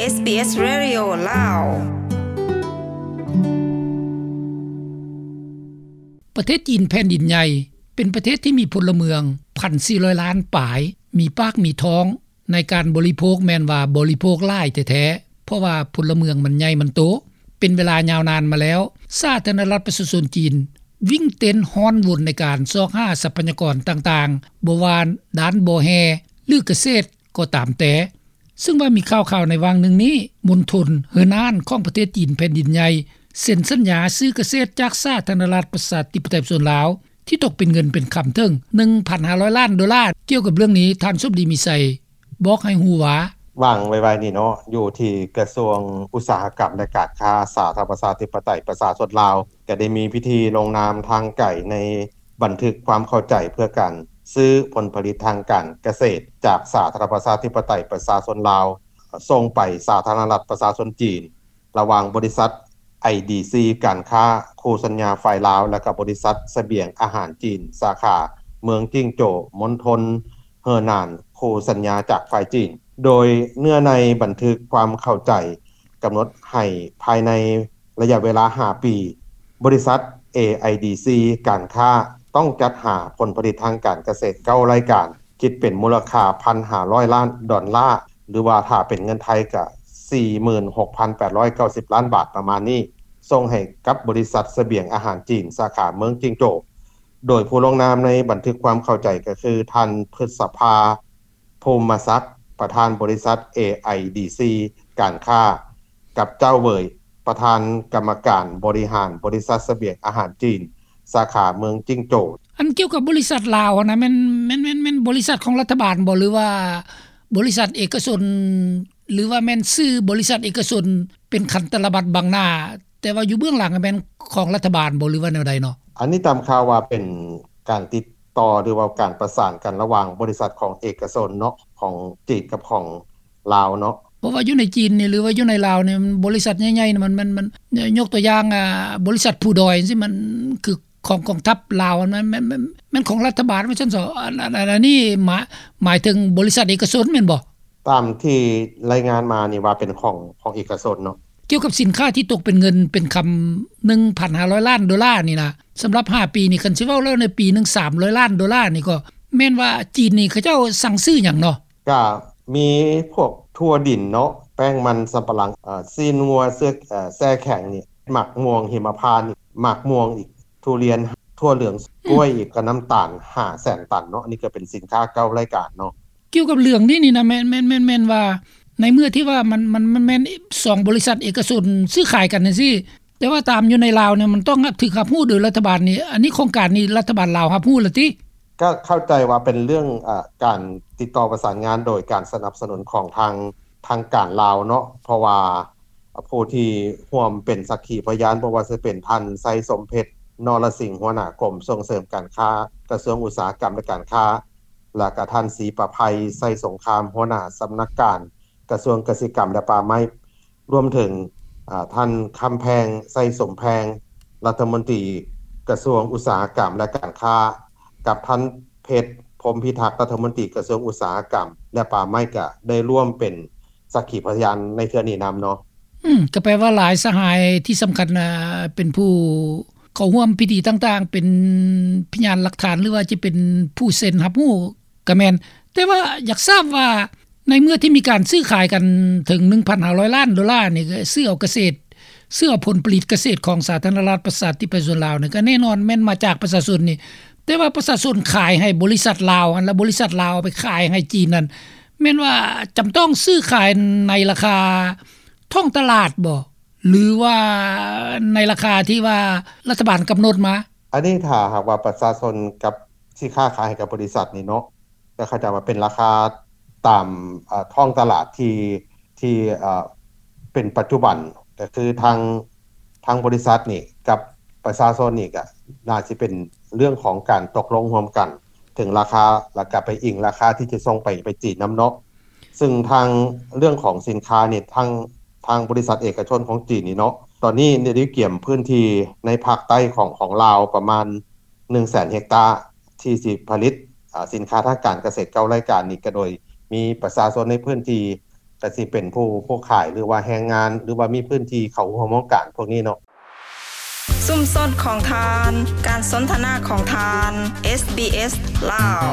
ເອສບີເອສ ເຣດິໂອ ລາວ. ປະເທດຈີນແຜ່ນດິນໃຫຍ່ ເປັນປະເທດທີ່ມີພົນລະເມືອງ ພັນສີ່ຮ້ອຍລ້ານປາຍ ມີປາກມີທ້ອງ ໃນການບໍລິໂພກແມ່ນວ່າບໍລິໂພກຫຼາຍແທ້ໆ ເພາະວ່າພົນລະເມືອງມັນໃຫຍ່ມັນໂຕ ເປັນເວລາຍາວນານມາແລ້ວ. ສາທາລະນະລັດປະຊາຊົນຈີນ ວິ່ງເຕັ້ນຮ້ອນວົນໃນການຊອກຫາຊັບພະຍາກອນຕ່າງໆ ບໍ່ວ່າດ້ານບໍ່ແຮ່ ຫຼື ກະເສດກໍຕາມແຕ່. ເຊິ່ງວ່າມີຂ່າວໆໃນຫວ່າງໜຶ່ງນີ້ ມົນທົນເຮີນານຂອງປະເທດຈີນແຜ່ນດິນໃຫຍ່ ເຊັນສັນຍາຊື້ກະເສດຈາກສາທາລະນະລັດປະຊາທິປະໄຕປະຊາຊົນລາວ ທີ່ຕົກເປັນເງິນເປັນຄຳເຖິງ ໜຶ່ງພັນຫ້າຮ້ອຍລ້ານໂດລາ. ກ່ຽວກັບເລື່ອງນີ້ ທ່ານສົມດີ ມີໄຊ ບອກໃຫ້ຮູ້ວ່າ ຫວ່າງໄວໆນີ້ເນາະ ຢູ່ທີ່ກະຊວງອຸດສາຫະກຳ ແລະ ການຄ້າ ສາທາລະນະລັດປະຊາທິປະໄຕປະຊາຊົນລາວ ກໍໄດ້ມີພິທີລົງນາມທາງໄກໃນບັນທຶກຄວາມເຂົ້າໃຈເພື່ອການຊື້ຜົນຜະລິດທາງການກະເສດຈາກສາທາລະນະລັດປະຊາທິປະໄຕປະຊາຊົນລາວ ສົ່ງໄປສາທາລະນະລັດປະຊາຊົນຈີນ ລະຫວ່າງບໍລິສັດ ໄອດີຊີ ການຄ້າຄູ່ສັນຍາຝ່າຍລາວ ແລະ ກະບໍລິສັດສະບຽງອາຫານຈີນ ສາຂາເມືອງຈິງໂຈວ ມົນທົນເຮີນານ ຄູ່ສັນຍາຈາກຝ່າຍຈີນ. ໂດຍເນື້ອໃນບັນທຶກຄວາມເຂົ້າໃຈກຳນົດໃຫ້ພາຍໃນໄລຍະເວລາຫ້າປີ ບໍລິສັດ ເອໄອດີຊີ ການຄ້າ ຕ້ອງຈັດຫາຜົນຜະລິດທາງການກະເສດເກົ້າລາຍການ ຄິດເປັນມູນລະຄ່າ ໜຶ່ງພັນຫ້າຮ້ອຍລ້ານດອນລາ ຫຼືວ່າຖ້າເປັນເງິນໄທກໍ ສີ່ໝື່ນຫົກພັນແປດຮ້ອຍເກົ້າສິບລ້ານບາດ ປະມານນີ້ ສົ່ງໃຫ້ກັບບໍລິສັດສະບຽງອາຫານຈີນ ສາຂາເມືອງຈິງໂຈວ ໂດຍຜູ້ລົງນາມໃນບັນທຶກຄວາມເຂົ້າໃຈກໍຄື ທ່ານ ພຶດສະພາ ພູມມະສັກ ປະທານບໍລິສັດ ເອໄອດີຊີ ການຄ້າ ກັບ ເຈົ້າເຫວີຍ ປະທານກຳມະການບໍລິຫານບໍລິສັດສະບຽງອາຫານຈີນ ສາຂາເມືອງຈິງໂຈວ. ອັນກ່ຽວກັບບໍລິສັດລາວຫັ້ນນະ ແມ່ນ ແມ່ນ ແມ່ນ ແມ່ນບໍລິສັດຂອງລັດຖະບານບໍ່ ຫຼືວ່າບໍລິສັດເອກະຊົນ ຫຼືວ່າແມ່ນຊື່ບໍລິສັດເອກະຊົນ ເປັນຂັນຕະລະບັດບັງໜ້າ ແຕ່ວ່າຢູ່ເບື້ອງຫຼັງແມ່ນຂອງລັດຖະບານບໍ່ ຫຼືວ່າແນວໃດເນາະ? ອັນນີ້ຕາມຂ່າວວ່າເປັນການຕິດຕໍ່ ຫຼືວ່າການປະສານກັນລະຫວ່າງບໍລິສັດຂອງເອກະຊົນເນາະ ຂອງຈີນກັບຂອງລາວເນາະ. ເພາະວ່າຢູ່ໃນຈີນນີ້ ຫຼືວ່າຢູ່ໃນລາວນີ້ ມັນບໍລິສັດໃຫຍ່ໆນີ້ ມັນ ມັນ ມັນ ຍົກຕົວຢ່າງ ອາ ບໍລິສັດພູດອຍຈັ່ງຊີ້ ມັນຄືຂອງກອງທັບລາວ ມັນ ມັນ ມັນ ມັນຂອງລັດຖະບານວ່າຊັ້ນເຊາະ. ອັນ ອັນ ອັນ ອັນນີ້ໝາຍ ໝາຍເຖິງບໍລິສັດເອກະຊົນແມ່ນບໍ່? ຕາມທີ່ລາຍງານມານີ້ວ່າເປັນຂອງ ຂອງເອກະຊົນເນາະ. ກ່ຽວກັບສິນຄ້າທີ່ຕົກເປັນເງິນເປັນຄຳ ໜຶ່ງພັນຫ້າຮ້ອຍລ້ານໂດລານີ້ນະ ສຳລັບຫ້າປີນີ້ ຄັນຊິເວົ້າແລ້ວໃນປີໜຶ່ງສາມຮ້ອຍລ້ານໂດລານີ້ ກໍແມ່ນວ່າຈີນນີ້ເຂົາເຈົ້າສັ່ງຊື້ຫຍັງເນາະ? ກະມີພວກຖົ່ວດິນເນາະ ແປ້ງມັນສຳປະຫຼັງ ເອີ ຊີ້ນງົວ ເຊືອກ ເອີ ແຊ່ແຂງນີ້ ໝາກມ່ວງຫິມະພານນີ້ ໝາກມ່ວງອີກ ທຸລຽນ ຖົ່ວເຫຼືອງ ອືມ ກ້ວຍອີກ ກະນ້ຳຕານຫ້າແສນຕັນເນາະ. ອັນນີ້ກະເປັນສິນຄ້າເກົ້າລາຍການເນາະ. ກ່ຽວກັບເລື່ອງນີ້ນີ້ນະ ແມ່ນ ແມ່ນ ແມ່ນ ແມ່ນວ່າໃນເມື່ອທີ່ວ່າມັນ ມັນ ມັນແມ່ນສອງບໍລິສັດເອກະຊົນຊື້ຂາຍກັນຈັ່ງຊີ້ ແຕ່ວ່າຕາມຢູ່ໃນລາວນີ້ ມັນຕ້ອງຖືກຮັບຮູ້ໂດຍລັດຖະບານນີ້ ອັນນີ້ໂຄງການນີ້ລັດຖະບານລາວຮັບຮູ້ແລ້ວຕິ? ກະເຂົ້າໃຈວ່າເປັນເລື່ອງ ອາ ການຕິດຕໍ່ປະສານງານໂດຍການສະໜັບສະໜູນຂອງທາງ ທາງການລາວເນາະ ເພາະວ່າຜູ້ທີ່ຮ່ວມເປັນສັກຂີພະຍານ ບໍ່ວ່າຈະເປັນທ່ານ ໄຊສົມເພັດ ນໍລະສິງ ຫົວໜ້າກົມສົ່ງເສີມການຄ້າ ກະຊວງອຸດສາຫະກຳ ແລະ ການຄ້າ ແລະ ກະທ່ານ ສີປະໄພ ໄຊສົງຄາມ ຫົວໜ້າສຳນັກງານກະຊວງກະສິກຳ ແລະ ປ່າໄມ້ ລວມເຖິງ ອາ ທ່ານ ຄຳແພງ ໄຊສົມແພງ ລັດຖະມົນຕີກະຊວງອຸດສາຫະກຳ ແລະ ການຄ້າ ກັບທ່ານ ເພັດ ພົມພິທັກ ລັດຖະມົນຕີກະຊວງອຸດສາຫະກຳ ແລະ ປ່າໄມ້ ກະໄດ້ຮ່ວມເປັນສັກຂີພະຍານໃນເທື່ອນີ້ນຳເນາະ. ອືມ ກະແປວ່າຫຼາຍສະຫາຍທີ່ສຳຄັນ ອາ ເປັນຜູ້ເຂົ້າຮ່ວມພິທີຕ່າງໆ ເປັນພະຍານຫຼັກຖານ ຫຼືວ່າຈະເປັນຜູ້ເຊັນຮັບຮູ້ ກະແມ່ນ. ແຕ່ວ່າຢາກຊາບວ່າ ໃນເມື່ອທີ່ມີການຊື້ຂາຍກັນເຖິງໜຶ່ງພັນຫ້າຮ້ອຍລ້ານໂດລານີ້ ກະຊື້ເອົາກະເສດ ຊື້ເອົາຜົນຜະລິດກະເສດຂອງສາທາລະນະລັດປະຊາທິປະໄຕປະຊາຊົນລາວນີ້ ກະແນ່ນອນແມ່ນມາຈາກປະຊາຊົນນີ້ ແຕ່ວ່າປະຊາຊົນຂາຍໃຫ້ບໍລິສັດລາວຫັ້ນ ແລ້ວບໍລິສັດລາວເອົາໄປຂາຍໃຫ້ຈີນນັ້ນ ແມ່ນວ່າຈຳຕ້ອງຊື້ຂາຍໃນລາຄາທ້ອງຕະຫຼາດບໍ່ ຫຼືວ່າໃນລາຄາທີ່ວ່າລັດຖະບານກຳນົດມາ? ອັນນີ້ຖ້າຫາກວ່າປະຊາຊົນກັບ ທີ່ຄ້າຂາຍໃຫ້ກັບບໍລິສັດນີ້ເນາະ ກໍເຂົ້າໃຈວ່າເປັນລາຄາຕາມ ເອີ ທ້ອງຕະຫຼາດທີ່ ທີ່ ເອີ ເປັນປັດຈຸບັນ ກໍຄືທາງ ທາງບໍລິສັດນີ້ກັບປະຊາຊົນນີ້ ກໍໜ້າຊິເປັນເລື່ອງຂອງການຕົກລົງຮ່ວມກັນເຖິງລາຄາ ແລ້ວກໍໄປອີງລາຄາທີ່ຈະສົ່ງໄປ ໄປຈີນນຳເນາະ. ເຊິ່ງທາງເລື່ອງຂອງສິນຄ້ານີ້ ທາງ ທາງບໍລິສັດເອກະຊົນຂອງຈີນນີ້ເນາະ ຕອນນີ້ໄດ້ກຽມພື້ນທີ່ໃນພາກໃຕ້ຂອງ ຂອງລາວປະມານ ໜຶ່ງແສນເຮັກຕາ ທີ່ຊິຜະລິດ ອາ ສິນຄ້າທາງການກະເສດເກົ້າລາຍການນີ້ ກະໂດຍມີປະຊາຊົນໃນພື້ນທີ່ ກໍຊິເປັນຜູ້ ຜູ້ຂາຍ ຫຼືວ່າແຮງງານ ຫຼືວ່າມີພື້ນທີ່ເຂົ້າຮ່ວມໂຄງການພວກນີ້ເນາະ. ຊຸມຊົນຂອງທ່ານ ການສົນທະນາຂອງທ່ານ SBS ລາວ.